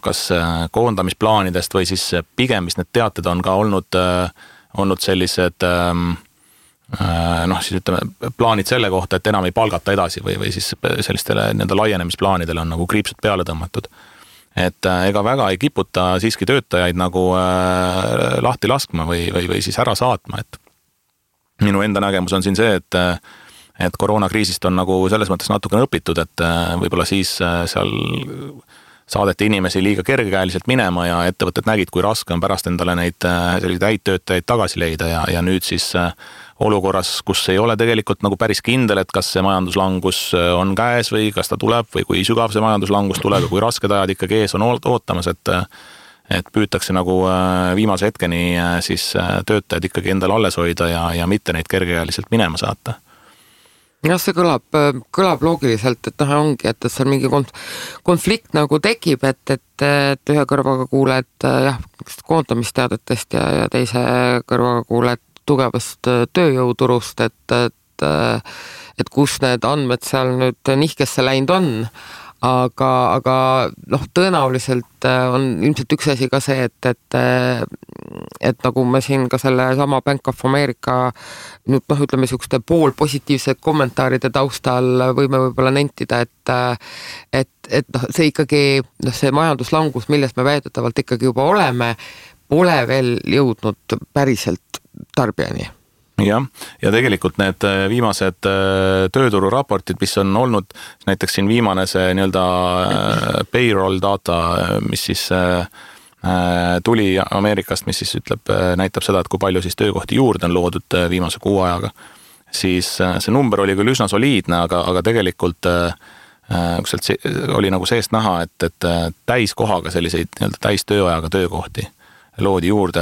kas koondamisplaanidest või siis pigem, mis need teated on ka olnud sellised siis ütleme plaanid selle kohta, et enam ei palgata edasi või siis sellistele nende laienemisplaanidele on nagu kriipsud peale tõmmatud. Et ega väga ei kiputa siiski töötajaid nagu lahti laskma või siis ära saatma, et minu enda nägemus on siin see, et koroonakriisist on nagu selles mõttes natukene õpitud, et võib-olla siis seal saadeti inimesi liiga kergekäeliselt minema ja ettevõtted nägid, kui raske on pärast endale neid selliseid häid töötajaid tagasi leida ja nüüd siis olukorras, kus ei ole tegelikult nagu päris kindel, et kas see majanduslangus on käes või kas ta tuleb või kui sügav see majanduslangus tuleb ja kui rasked ajad ikkagi ees on ootamas, et püütakse nagu viimase hetkeni siis töötajad ikkagi endale alles hoida ja mitte neid kergekäeliselt minema saata. jah, see kõlab loogiliselt, et ongi, et seal mingi konflikt nagu tekib, et ühe kõrvaga kuuled jah, koondamisteadetest ja teise kõrvaga kuuled tugevast tööjõuturust, et kus need andmed seal nüüd nihkesse läinud on. Aga tõenäoliselt on ilmselt üks asi ka see, et nagu me siin ka selle sama Bank of America nüüd ütleme niisuguste poolpositiivse kommentaaride taustal võime võib-olla nentida, et see ikkagi, see majanduslangus, milles me väidetavalt ikkagi juba oleme, pole veel jõudnud päriselt tarbijani. Jah, ja tegelikult need viimased töötururaportid, mis on olnud, näiteks siin viimane see nii-öelda payroll data, mis siis tuli Ameerikast, mis siis näitab seda, et kui palju siis töökohti juurde on loodud viimase kuu ajaga, siis see number oli küll üsna soliidne, aga tegelikult oli nagu seest näha, et täiskohaga selliseid nii-öelda täistööajaga töökohti loodi juurde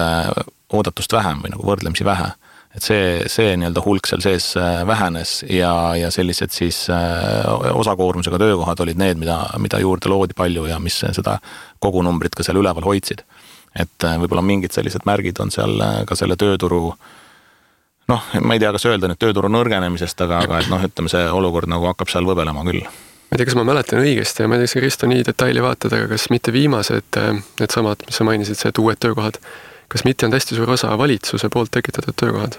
oodatust vähem või nagu võrdlemisi vähe. Et see nii-öelda hulk seal sees vähenes ja sellised siis osakoormusega töökohad olid need, mida juurde loodi palju ja mis seda kogunumbrit ka seal üleval hoidsid. Et võib-olla mingid sellised märgid on seal ka selle tööturu, ma ei tea, kas öelda nüüd tööturu nõrgenemisest, aga et ütleme, see olukord nagu hakkab seal võbelema küll. Ma ei tea, kas ma mäletan õigesti ja ma ei tea, kas Risto nii detaili vaatad, aga kas mitte viimased need samad, mis sa mainisid, see, et uued töökohad, kas mitte on hästi suur osa valitsuse poolt tekitatud töökohad?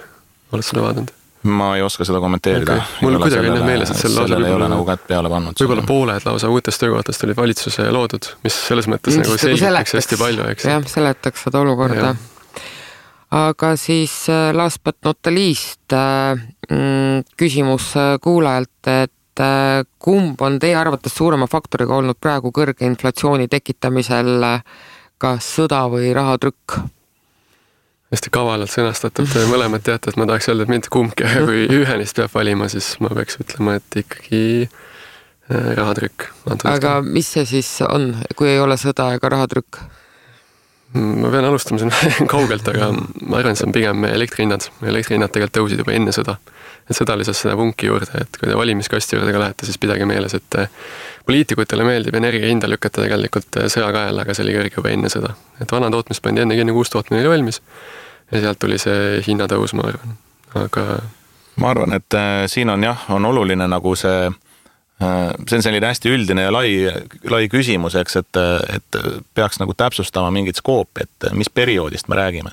Oled seda vaadanud? Ma ei oska seda kommenteerida. Okay. Mul kuidagi on meeles, et sellele ei ole nagu kätt peale pannud. Võib-olla pooled lausa uutest töökohtast olid valitsuse loodud, mis selles mõttes nagu selgitaks hästi palju, eks? Jah, seletaks seda olukorda. Aga siis last but not the least küsimus kuulajalt, et kumb on teie arvates suurema faktoriga olnud praegu kõrge inflatsiooni tekitamisel, kas sõda või rahatrükk? Hästi kavalalt sõnastatud, mõlemad teate, et ma tahaks öelda, et mitte kumbki, kui ühe neist peab valima, siis ma peaks ütlema, et ikkagi rahatrükk. Aga mis see siis on, kui ei ole sõda ega rahatrükk? Ma pean alustama siin kaugelt, aga ma arvan, see on pigem elektrihinnad. Elektrihinnad tegelikult tõusid juba enne sõda. Et sõda lisas seda punki juurde, et kui te valimiskasti juurde ka lähete, siis pidage meeles, et poliitikutele meeldib energia hinda lükata tegelikult sõja kaela, aga see oli kõrge juba enne sõda. Et vana tootmis pandi enne uus tootmine oli valmis ja sealt tuli see hinnatõus, ma arvan. Aga ma arvan, et siin on on oluline nagu see on selline hästi üldine ja lai küsimus, eks, et peaks nagu täpsustama mingit skoopi, et mis perioodist me räägime.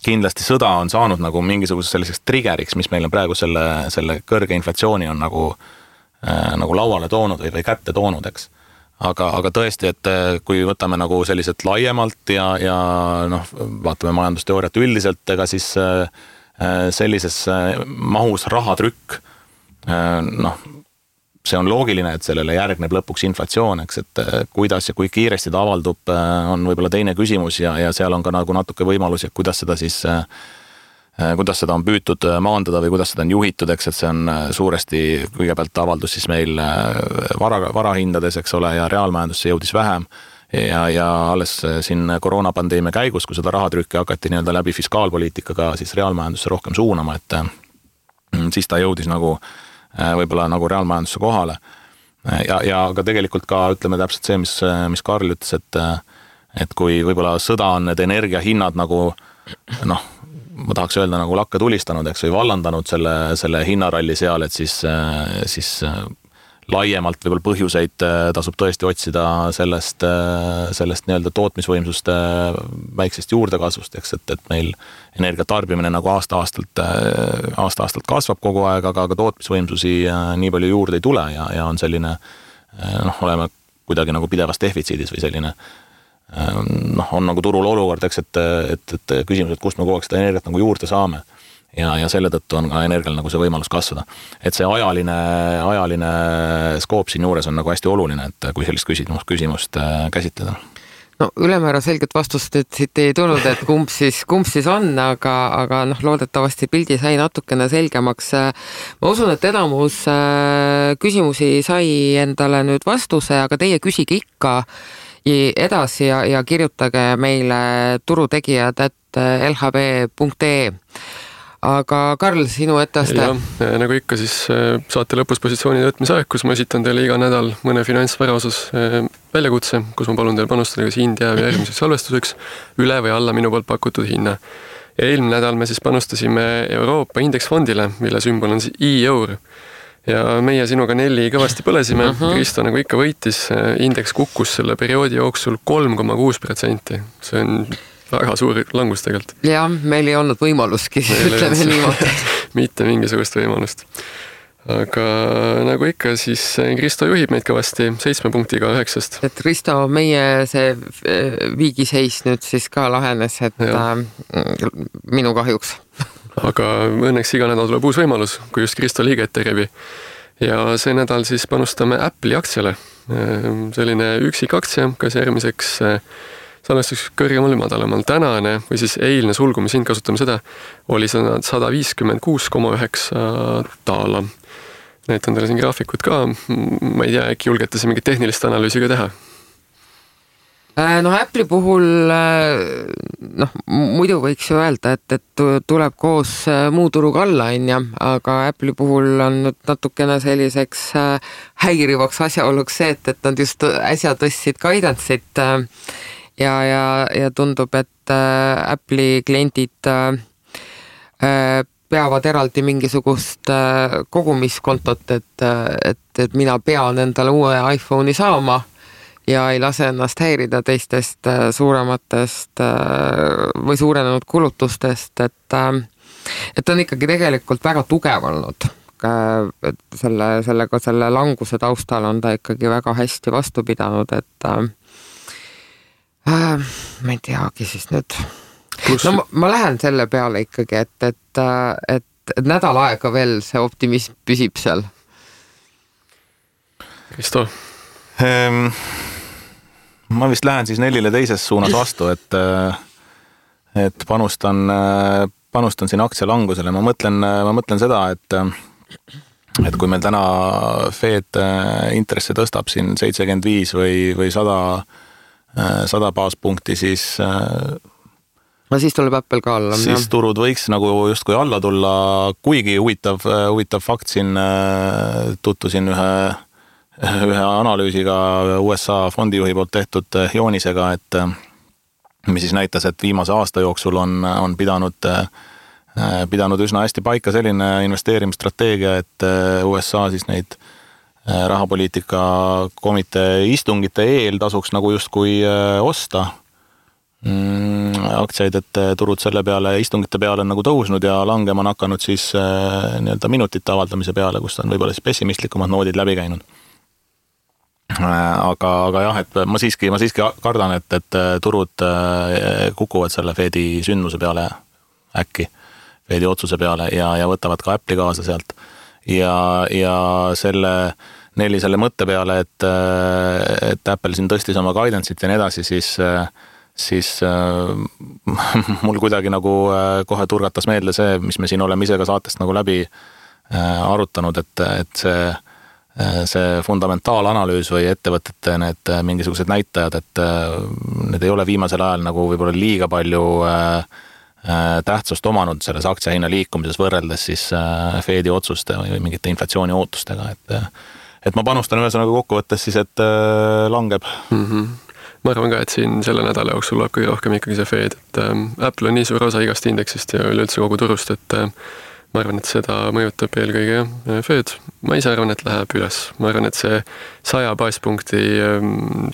Kindlasti sõda on saanud nagu mingisuguseks selliseks triggeriks, mis meil on praegu selle kõrge inflatsiooni on nagu lauale toonud või kätte toonud, eks. Aga tõesti, et kui võtame nagu selliselt laiemalt ja vaatame majandusteooriat üldiselt, ega siis sellises mahus rahatrükk, see on loogiline, et sellele järgneb lõpuks inflatsioon, eks, et kuidas ja kui kiiresti ta avaldub, on võib-olla teine küsimus ja seal on ka nagu natuke võimalusi, kuidas seda on püütud maandada või kuidas seda on juhitud, eks, et see on suuresti kõigepealt avaldus siis meil varahindades, eks ole, ja reaalmajandusse jõudis vähem ja alles siin koroonapandeemia käigus, kui seda rahatrükki hakati nii-öelda läbi fiskaalpoliitikaga siis reaalmajandusse rohkem suunama, et siis ta jõudis nagu võib-olla nagu reaalmajandusse kohale. Ja aga tegelikult ka ütleme täpselt see, mis Karl ütles, et kui võib-olla sõda on need energiahinnad nagu ma tahaks öelda nagu lakke tulistanud, eks, või vallandanud selle hinnaralli seal, et siis laiemalt võib-olla põhjuseid tasub tõesti otsida sellest nii-öelda tootmisvõimsuste väiksest juurdekasvust, eks, et meil energiatarbimine nagu aasta-aastalt kasvab kogu aeg, aga tootmisvõimsusi nii palju juurde ei tule ja on selline, oleme kuidagi nagu pidevas defitsiidis või selline on nagu turul olukord, eks, et küsimus, et kust me kogu aeg seda energiat nagu juurde saame ja selle tõttu on ka energial nagu see võimalus kasvada. Et see ajaline skoop siin juures on nagu hästi oluline, et kui sellist küsimust käsitleda. No ülemäära selget vastust siit ei tulnud, et kumb siis on, aga loodetavasti pildi sai natukene selgemaks. Ma usun, et enamus küsimusi sai endale nüüd vastuse, aga teie küsige ikka edasi ja kirjutage meile turutegijad@lhv.ee. aga Karl, sinu etteaste? Nagu ikka siis saate lõpus positsioonide võtmise aeg, kus ma esitan teile iga nädal mõne finantsvara osas väljakutse, kus ma palun teil panustada kas India või järgmiseks salvestuseks üle või alla minu poolt pakutud hinna. Ja eelmine nädal me siis panustasime Euroopa indeksfondile, mille sümbol on siis EUR. Ja meie sinuga Nelli kõvasti põlesime, Kristo nagu ikka võitis, indeks kukkus selle perioodi jooksul 3,6%. See on väga suur langus tegelikult. Ja, meil ei olnud võimaluski, ütleme niimoodi. Mitte mingisugust võimalust. Aga nagu ikka, siis Kristo juhib meid kõvasti 7 punktiga 9. Et Kristo, meie see viigiseis nüüd siis ka lahenes, et minu kahjuks. Aga õnneks iga nädal tuleb uus võimalus, kui just Kristo liiget tegebi. Ja see nädal siis panustame Apple'i aktsiale. Selline üksik aktsia, kas järgmiseks salvestuseks kõrgemal või madalamal. Tänane või siis eilne sulgumishind, kasutame seda, oli 156,9 daala. Näitan teile siin graafikut ka. Ma ei tea, äkki julgete see mingit tehnilist analüüsi ka teha? No Apple'i puhul muidu võiks ju öelda, et tuleb koos muu turuga alla, aga Apple'i puhul on nüüd natukene selliseks häirivaks asjaoluks see, et nad just äsja tõstsid guidance'it ja tundub, et Apple'i kliendid peavad eraldi mingisugust kogumiskontot, et mina pean endale uue iPhone'i saama ja ei lase ennast häirida teistest suurematest või suurenenud kulutustest, et on ikkagi tegelikult väga tugev olnud. Selle languse taustal on ta ikkagi väga hästi vastu pidanud, et ma ei teagi siis nüüd. No ma lähen selle peale ikkagi, et nädal aega veel see optimism püsib seal. Kristo? Ma vist lähen siis Nellile teises suunas vastu, et panustan siin aktsia langusele. Ma mõtlen seda, et kui meil täna Fed intresse tõstab siin 75 või 100 baaspunkti, siis tuleb Apple ka alla. Siis turud võiks nagu justkui alla tulla, kuigi huvitav fakt siin tutvusin ühe analüüsiga USA fondijuhi poolt tehtud joonisega, et mis siis näitas, et viimase aasta jooksul on pidanud üsna hästi paika selline investeerimisstrateegia, et USA siis neid rahapoliitika komitee istungite eel tasuks nagu justkui osta aktsiaid, et turud selle peale istungite peale on nagu tõusnud ja langema on hakanud siis nii-öelda minutite avaldamise peale, kus on võib-olla siis pessimistlikumad noodid läbi käinud. Aga jah, et ma siiski kardan, et turud kukuvad selle Fedi sündmuse peale äkki, Fedi otsuse peale ja võtavad ka Apple'i kaasa sealt. Ja selle mõtte peale, et Apple siin tõstis oma guidance'it ja nii edasi, siis mul kuidagi nagu kohe turgatas meelde see, mis me siin oleme ise ka saatest nagu läbi arutanud, et see fundamentaalanalüüs või ettevõtete need mingisugused näitajad, et need ei ole viimasel ajal nagu võib-olla liiga palju tähtsust omanud selles aktsiahinna liikumises võrreldes siis Fedi otsuste või mingite inflatsiooni ootustega, et ma panustan ühesõnaga kokkuvõttes siis, et langeb. Ma arvan ka, et siin selle nädala jooksul tuleb kõige rohkem ikkagi see Fed, et Apple on nii suur osa igast indeksist ja üleüldse kogu turust, et ma arvan, et seda mõjutab eelkõige Fed. Ma ise arvan, et läheb üles. Ma arvan, et see 100 baaspunkti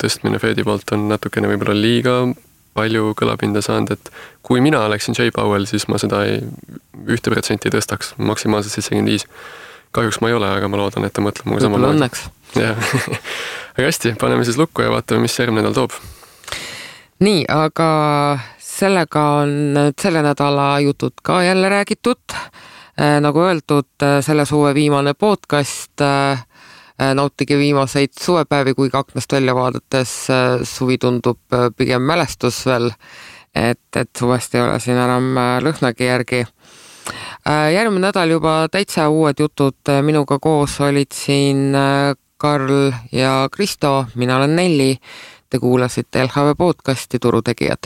tõstmine Fedi poolt on natukene võib-olla liiga palju kõlapinda saanud, et kui mina oleksin Jay Powell, siis ma seda 1% tõstaks, maksimaalselt 75. Kahjuks ma ei ole, aga ma loodan, et ta mõtleb muga sama. Võib-olla õnneks. Aga hästi, paneme siis lukku ja vaatame, mis järgmine nädal toob. Nii, aga sellega on selle nädala jutud ka jälle räägitud. Nagu öeldud, selle suve viimane podcast, nautige viimaseid suvepäevi, kui aknast välja vaadates suvi tundub pigem mälestus veel, et suvest ei ole siin enam lõhnagi järgi. Järgmine nädal juba täitsa uued jutud, minuga koos olid siin Karl ja Kristo, mina olen Nelli, te kuulasite LHV podcasti Turutegijad.